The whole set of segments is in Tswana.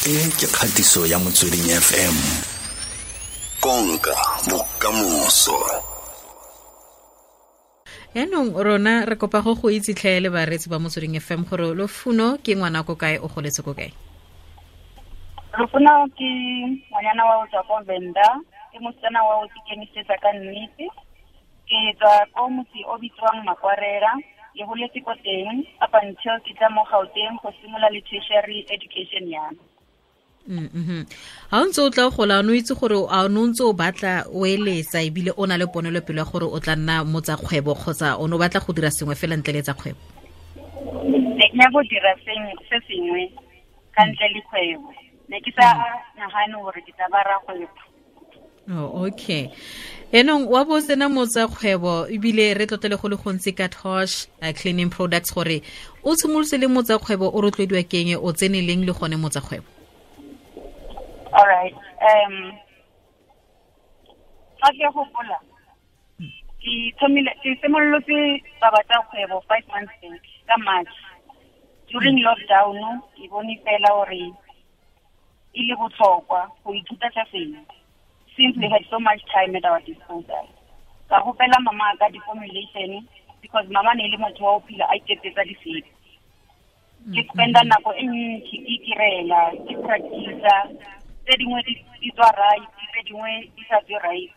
E ke kgatiso ya Motsweding FM. Konka bokamoso. Yaanong rona re kopa go go itse tlhe le bareetsi ba Motsweding FM gore Lofuno ke ngwana ko kae, o goletse ko kae? Lofuno ke ngwanyana wa o tswa ko Venda, ke mosetsana wa o ikemisetsa ka nnete. Ke tswa ko motse o bitswang Makwarela, ke holetse ko teng up until ke tla mo Gauteng go simolola le tertiary education ya me. Ha o ntse o tla gola, o itse gore a o ntse o batla o eletsa ebile o na le ponelopele ya gore o tla nna motsa kgwebo kgotsa o ne o batla go dira sengwe fela ntle le tsa kgwebo? Ne ke nyaka go dira se sengwe ka ntle le kgwebo. Ne ke sa nagane gore ke tla ba rakgwebo. Oh, okay. Enong wa bo sena motsa kgwebo ebile re tlotlele go le gontsi ka Tosh Cleaning Products gore o tshimolotse le motsa kgwebo o rotloediwa keng, o tsene leng le gone motsa kgwebo? All right. Fa ke gopola ke thomile ke simolotse taba tsa kgwebo 5 months back ka March. During lockdown ke bone fela gore e le botlhokwa go ithuta tsa sengwe, since we had so much time at our disposal. Ka gopela mama ka di-formulation because mama ne e le motho wa o phela a iketsetsa disepe. Ke spenda nako e ntsi ke itirela, ke practice-a, tse dingwe di tswa right, tse dingwe di sa tswe right.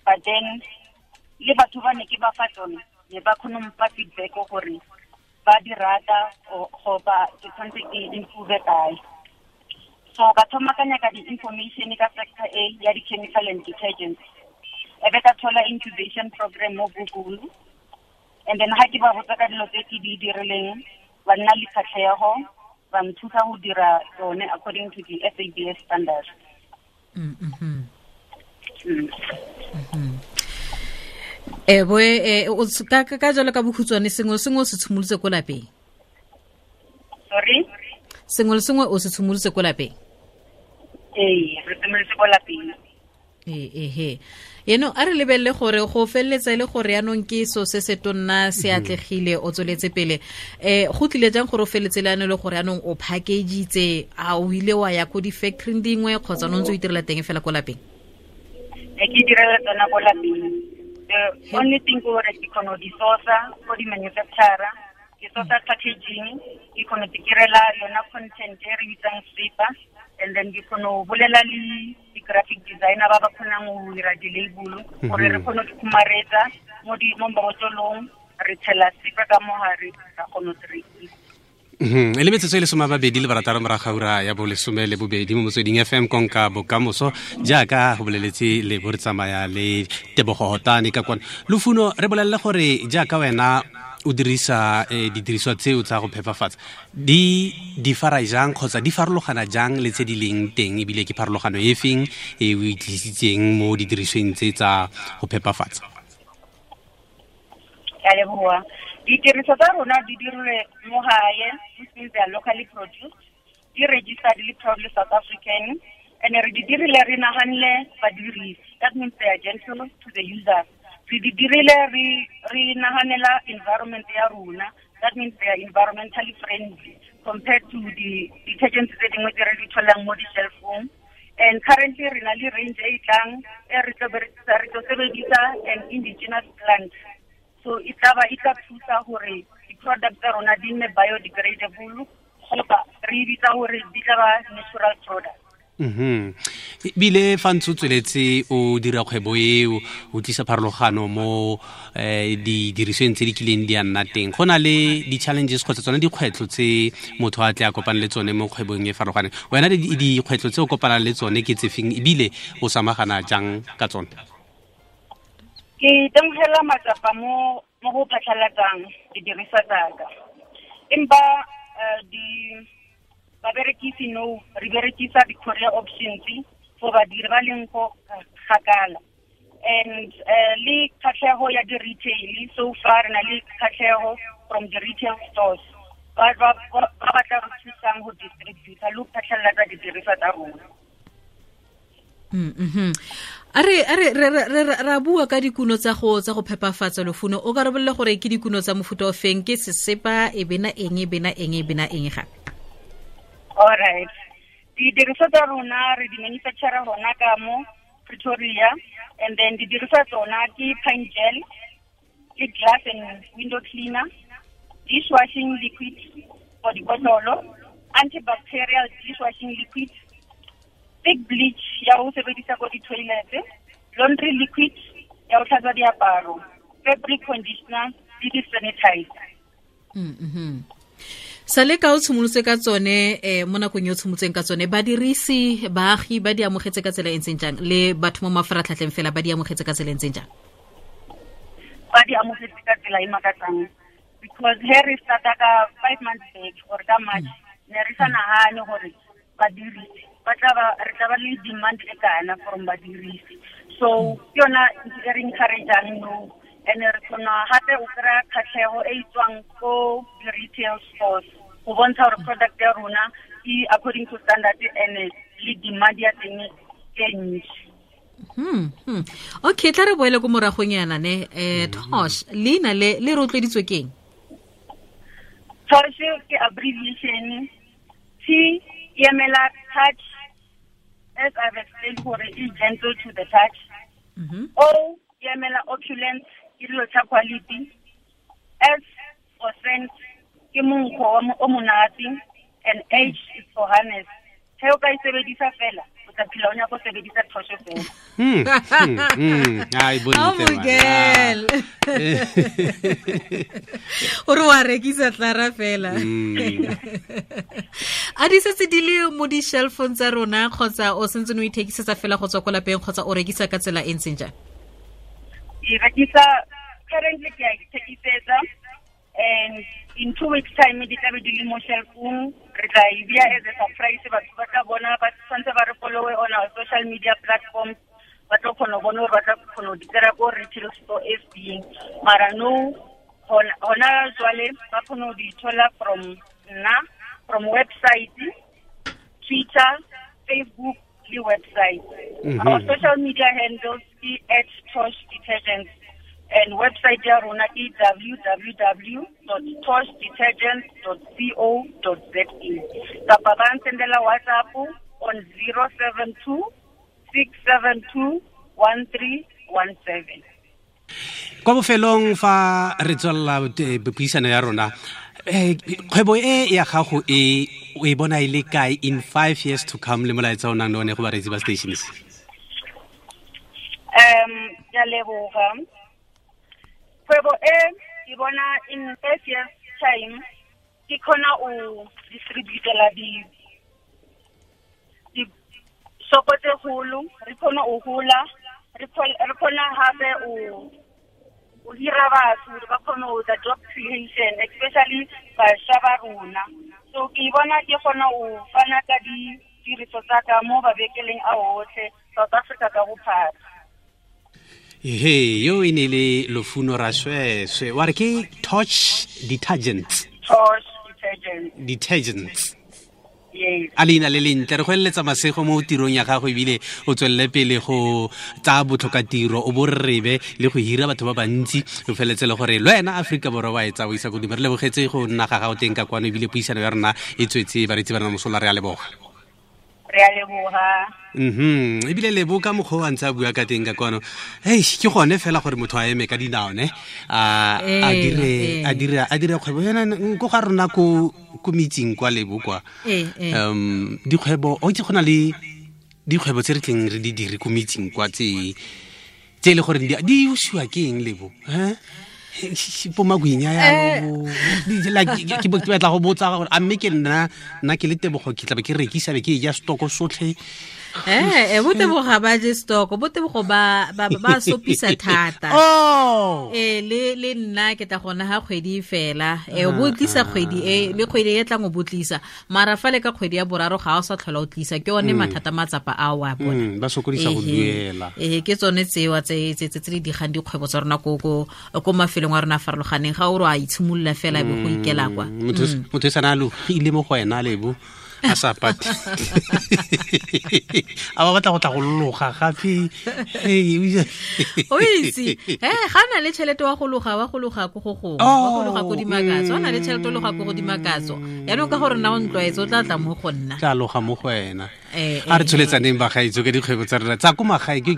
But then le batho ba ne ke ba fa tsone ne ba kgone go mpha feedback gore ba di rata goba ke tshwanetse ke improve kae. So ka thoma ka nyaka di-information ka sector A ya di-chemical and detergents. E be ka thola incubation program mo Google. And then ha ke ba botsa ka dilo tse ke di dirileng, ba nna le kgatlhego, ba nthusa go dira tsone according to the SABS standards. Boe, o ka jalo ka bokhutshwane, sengwe le sengwe o se tshimolotse ko lapeng? Sorry? Sengwe le sengwe o se tshimolotse ko lapeng? Ee, re tshimolotse ko lapeng. Ee. Eno a re lebelele gore go feleletsa e le gore yaanong ke so se se tonna se atlegile, o tsweletse pele. Go tlile jang gore o feletse le le gore yaanong o package-itse, a o ile wa ya ko di-factory dingwe kgotsa o ntse o itirela teng fela ko lapeng? Ne ke itirela tsona ko lapeng. The only thing ke gore ke kgona go di source-a ko di-manufacturer, ke source-a packaging, ke kgona go itirela yona content e re bitsang sepa, and then ke kgona go bolela le di-graphic designer ba ba kgonang go dira di-label gore re kgone go khumaretsa mo mabotlolong, re tshela sepa ka mogare, ra kgona go rekisa. E le metsotso e le 26 morago ga ura ya bolesome le bobedi mo Motsweding FM, konka bokamoso jaaka go boleletse le bo re tsamaya le Tebogo Hotane ka kwana. Lufuno, re bolelele gore jaaka wena o dirisa didiriswa tseo tsa go phepafatsa, di di fara jang kgotsa di farologana jang le tse di leng teng, ebile ke pharologano e feng e o e tlisitseng mo didirisweng tse tsa go phepafatsa? Ke a leboha. Ditiriso tsa rona di dirilwe mo gae, which means they are locally produced, di registered le proudly South African, and re di dirile re naganne badirisi. That means they are gentle to the users. Re di dirile re naganela environment ya rona. That means they are environmentally friendly compared to the detergents tse dingwe tse re di tholang mo di-shelf-ong. And currently re na le range e tlang e re tlo berekisa, re tlo sebedisa an indigenous plant. So e tla ba e tla thusa gore di-product tsa rona di nne biodegradable, goba re e bitsa gore di tla ba natural product. Ebile fa ntse o tsweletse o dira kgwebo eo, o tlisa pharologano mo didirisweng tse di kileng di a nna teng, go na le di-challenges kgotsa tsone dikgwetlho tse motho a tle a kopane le tsone mo kgwebong e farologaneng. Wena dikgwetlho tse o kopanang le tsone ke tse feng, ebile o samagana jang ka tsone? Ke itemogela matsapa mo go phatlhalatsang didiriswa tsaka. Empa di baberekisi no, re berekisa di-courier options for badiri ba leng ko kgakala. And le kgatlhego ya di-retail, so far re na le kgatlhego from the retail stores ba batla re thusang go distributor le go phatlhalatsa didiriswa tsa rona. A re ra bua ka dikuno tsa go phepafatsa, Lufuno, o ka re bolele gore ke dikuno tsa mofuta o feng, ke sesepa e bena eng e bena eng e bena eng gape? All right. Didiriswa tsa rona re di manufacture hona ka mo Pretoria, and then didiriswa tsona ke pine gel, ke glass and window cleaner, dishwashing liquid for dikotlolo, antibacterial dishwashing liquid, thick bleach ya ho sebedisa ko di-toilet, laundry liquid ya ho tlhatswa diaparo, fabric conditioner le di-sanitizer. Sale ka o tshimolotse ka tsone mo nakong e o tshimotseng ka tsone, badirisi baagi ba di amogetse ka tsela e ntseng jang, le batho mo mafaratlhatlheng fela ba di amogetse ka tsela e ntseng jang? Ba di amogetse ka tsela e makatsang, because he re starta ka 5 months back or ka March, ne re sa nagane gore badirisi ba tla ba re tla ba le demand e kana from badirisi. So ke yona ntho e re encourageang no, and re kgona gape o kry-a kgatlhego e tswang ko di-retail stores go bontsha gore product ya rona e according to standard and le demand ya teng e ntsi. Okay, tla re boele ko moragong yana ne. Tosh, leina le le rotloeditswe ke eng? Tosh ke abbreviation. T e emela touch, as I've explained gore e gentle to the touch. O e emela opulence, ke dilo tsa quality. S for scent, ke monkgo o monate, and H is for harness. He o ka e sebedisa fela, o tla phela o nyaka go sebedisa Tosh fela. Ai, bontle. O re wa rekisa tlara fela. A di setse di le mo di-shelfong tsa rona, kgotsa o sentse o ithekisetsa fela go tswa ko lapeng, kgotsa o rekisa ka tsela e ntseng jang? Ke rekisa currently, ke a ithekisetsa, and in 2 weeks time di tla be di le mo shelfong. Re tla e bea as a surprise, batho ba tla bona, ba tshwanetse ba re followe on our social media platforms, ba tlo kgona go bona gore ba tla kgona go di kry-a ko retail store e feng. Mara no, hona jwale ba kgona go di thola from nna, from website, Twitter, Facebook le website. Our social media handles ke @ToshDetergents, and website ya rona ke www.toshdetergents.co.za. Kapa ba nsendela WhatsApp on 072 672 1317. Kwa bofelong fa re tswelela puisano ya rona, kgwebo e ya gago e o e bona e le kae in 5 years to come, le molaetsa o nang le one go bareetsi ba stations? Ke a leboga. Kgwebo e ke bona in 5 years time ke kgona o distributela di shopo tse kgolo, re kgona o hola, re kgona hape o hira batho ba kgone ho etsa job creation, especially bašwa ba rona. So ke bona ke kgona ho fana ka ditiriso tsa ka mo mabenkeleng a otlhe South Africa ka bophara. He, yo e ne le Lufuno Rasoesoe, wa re ke Tosh Detergents. Tosh Detergents. Detergents. Yes. A leina le lentle, re go eletsa masego mo tirong ya gago, ebile o tswelele pele go tsaya botlhokatiro, o bo rebe le go hira batho ba bantsi, o feletse le gore le wena Aforika Borwa wa e tsaya o isa godimo. Re lebogetse go nna ga gago teng ka kwano, ebile puisano ya rona e tswetse bareetsi ba rona mosola. Re a leboga. Re a leboga. Ebile lebo ka mokgwa o a ntse a bua ka teng ka kwano. Hei, ke gone fela gore motho a eme ka dinao ne, a dire kgwebo yona ko ga rona ko metsing kwa lebo kwa. Dikgwebo, o itse go na le dikgwebo tse re tleng re di dire ko metsing kwa tse e le gore di usiwa ke eng lebo? Bo magwinya yalo, ke batla go botsa gore a mme ke nna ke le Tebogo ke tlabe ke rekisa be ke ja stoko sotlhe. Botebogo ba je stoko, botebogo ba sopisa thata. Le nna ke tla gona ha kgwedi fela. O bo tlisa kgwedi e le kgwedi e tlang o bo tlisa. Mara fa le ka kgwedi ya boraro ga o sa tlhola o tlisa, ke one mathata matsapa a wa bona. Ba sokodisa go duela. Ke tsone tsewa tse tse di digang dikgwebo tsa rona ko mafelong a rona a farologaneng, ga o re a itshimolola fela be go ikela kwa. Motho e sana logile mo go wena lebo. A sa pate a ba batla go tla go loga gape. O itse e ga na le tšhelete wa go loga, wa go loga ko go gongwe, wa go loga ko Dimakatso. Wa na le tšhelete o loga ko go Dimakatso. Yaanong ka gore nna o ntlwaetse, o tla tla mo go nna. Tla loga mo go wena. A re tsholetsaneng, bagaetso, ka dikgwebo tsa rona tsa ko magae. Ke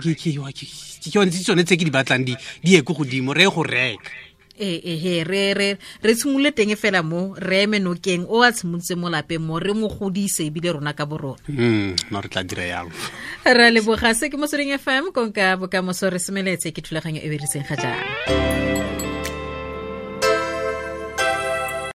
tsone tse ke di batlang di ye ko godimo, re ye go reka. Ee, re tshimolole teng fela mo re eme nokeng o a tshimolotse mo lapeng mo, re mo godise ebile rona ka borona. No, re tla dira yalo. Ra leboga. Se ke Motsweding FM, konka bokamoso. Re semeletse ke thulaganyo e beriseng ga jaana.